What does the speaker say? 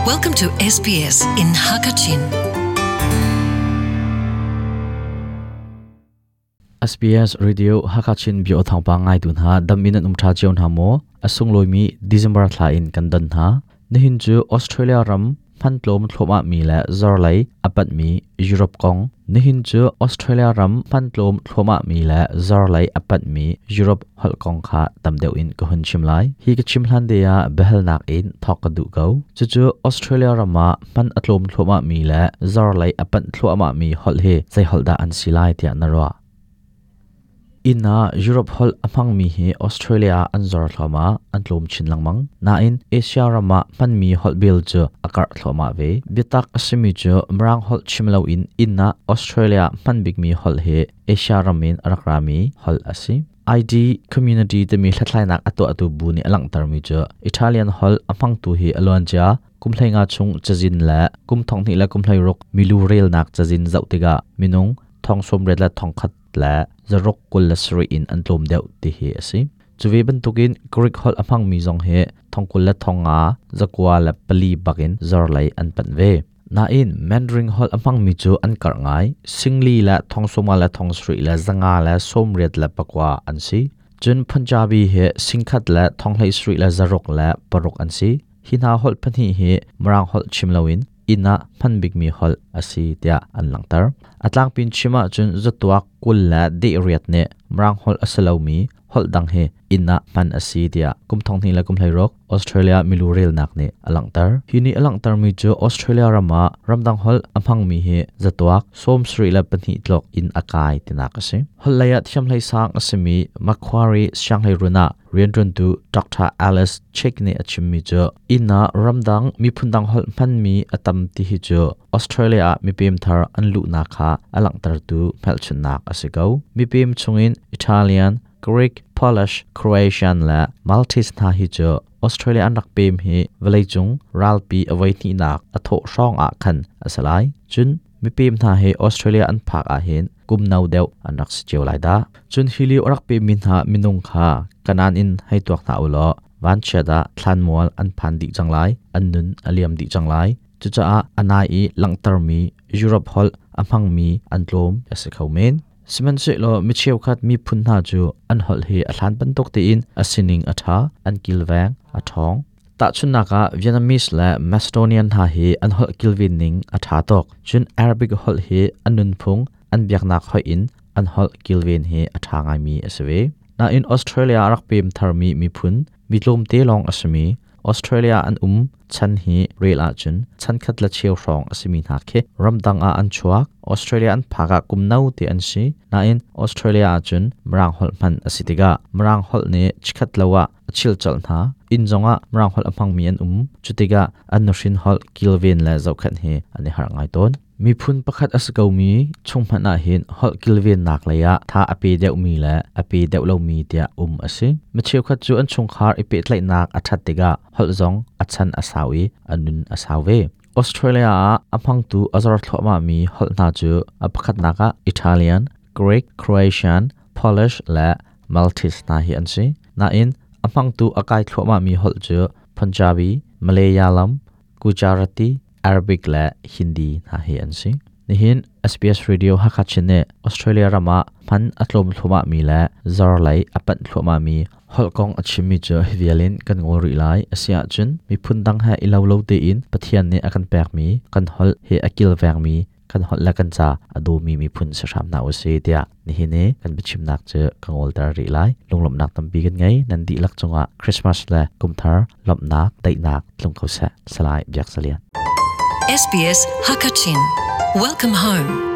Welcome to SBS in Hakachin. SBS Radio Hakachin bio thawngpang ngaitu hna dam in an um tha cio hna maw? A sunglawi December thla in kan don hna. Nihin cu Australia ram hmantlawm thluahmah mi le zorlei a panhmi Europe kong. Nihin cu Australia ram hmantlawm thluahmah mi le zorlei a panhmi Europe holh kong kha tam deuh in ka hun chim lai. Hi ka chim hlan te ah biahalnak in thawk ka duh ko. Cucu Australia ram ah hman a tlawm thluahmah mi le zorlei a panh thluahmah mi holh hi zei holh dah an si lai tiah na ruah? Inn ah Europe holh a hmangmi hi Australia ah an zor thluahmah, an tlawm chin lengmang. Nain Asia ram ah hmanmi holh bil cu a karh thluahmah ve. Biatak a simi cu Mirang holh chim loin inn ah Australia hman bikmi holh hi Asia ram in a rak rami holh a si. ID community timi hlathlainak a tuahtu bu nih a langhtermi cu Italian holh a hmangtu hi a luancia kum 15 chung cazin le kum 12 le kum 16 milu relnak cazin zoh tikah minung thong 80 le thong khat le zaruk 27 in an tlawm deuh ti hi a si. Cu ve bantukin Greek holh a hmangmi zong hi thong 20 le thong nga zakua le pali bakin zorlei an panh ve. Nain Mandarin holh a hmangmi cu an karh ngai. Singli le thong sawma le thong sarih le zanga le sawmriat le pakua an si. Cun Punjabi hi singkhat le thong hlei sarih le zaruk le paruk an si. Hi hna holh pahnih hi Mirang holh chim loin inn ah hman bikmi holh a si tiah an langhter. A tlangpin chim ahcun zatuak 20 le dehriat nih Mirang holh a si lomi holh dang hi inn ah hman a si tiah kum 20 le kum 16 Australia milu relnak nih a langhter. Hi nih a langhtermi cu Australia ram ah ramdang holh a hmangmi hi zatuak 72 tluk in a kai tinak a si. Holh lei ah thiamhlei sang a simi Macquarie Sianghleirun ah rianṭuantu Dr. Alice Chick nih a chimmi cu inn ah ramdang miphun dang holh hmanmi a tam ti hi cu Australia ah mipem thar an luhnak kha a langhtertu hmelchunhnak a si ko. Mipem chungin Italian, Greek, Polish, Croatian le Maltese hna hi cu Australia an rak pem hi vawleicung ralpi a voihnihnak a thawh hrawng ah khan a si lai. Cun mipem hna hi Australia an phak ahhin kum no deuh an rak si cio lai dah. Cun hi lio a rak pemmi hna minung kha Kanaan in hei tuak hna u law vanchiat ah thlanmual an phan dih cang lai, an nun a liam dih cang lai. Cucaah a nai i langhtermi Europe holh a hmangmi an tlawm a si kho men. Sihmanhsehlaw mi cheukhat miphun hna cu an holh hi a hlan bantuk tein a sining a ṭha, an kilveng, a ṭhawng. Tahchunhnak ah Vietnamese le Macedonian hna hi an holh kilven ning a ṭha tuk. Cun Arabic holh hi an nunphung, an biaknak hoih in an holh kilven hi a ṭha ngaimi a si ve. Nain Australia a rak pem tharmi miphun, mi tlawmte lawng a simi, Australia an um chan hi rel ahcun chankhat le cheu hrawng a simi hna khi ramdang ah an chuak. Australia an phak ah kum no te an si. Nain Australia ahcun Mirang holh hman a si tikah Mirang holh nih chikhat lo ah a chilcolh hna. Inn zongah Mirang holh a hmangmi an um. Cu tikah an nuhrin holh kilven le zohkhenh hi an i harh ngai tawn. Miphun pakhat a si komi chung hmanh ah hin holh kilvennak lei ah tha a pe deuhmi le a pe deuh lomi tiah um a si. Mi cheukhat cu an chungkhar i pehtlaihnak a ṭhat tikah holh zong a chan a sau i a nun a sau ve. Australia ah a hmangtu a zor thluahmahmi holh hna cu a pakhatnak ah Italian, Greek, Croatian, Polish le Maltese hna hi an si. Nain a hmangtu a kai thluahmahmi holh cu Punjabi, Malayalam, Gujarati, Arabic le Hindi hna hi an si. Nihin SBS Radio Hakha Chin nih Australia ram ah hman a tlawm thluahmahmi le zor lei a panh thluahmahmi holh kong a chimmi cu hi vial in kan ngawl rih lai. A si ahcun miphun dang he i lo lo tein Pathian nih a kan pekmi kan holh hi a kilvengmi kan holh le kan ca a dawmi miphun si hram hna usih tiah nihin i kan biachimnak cu ka ngolter rih lai. Lunglawmhnak tampi kan ngei. Nan dihlak cungah Christmas le kumthar lawmhnak, daihnak tlung ko seh. Salai Biak Zalian. SBS Hakachin. Welcome home.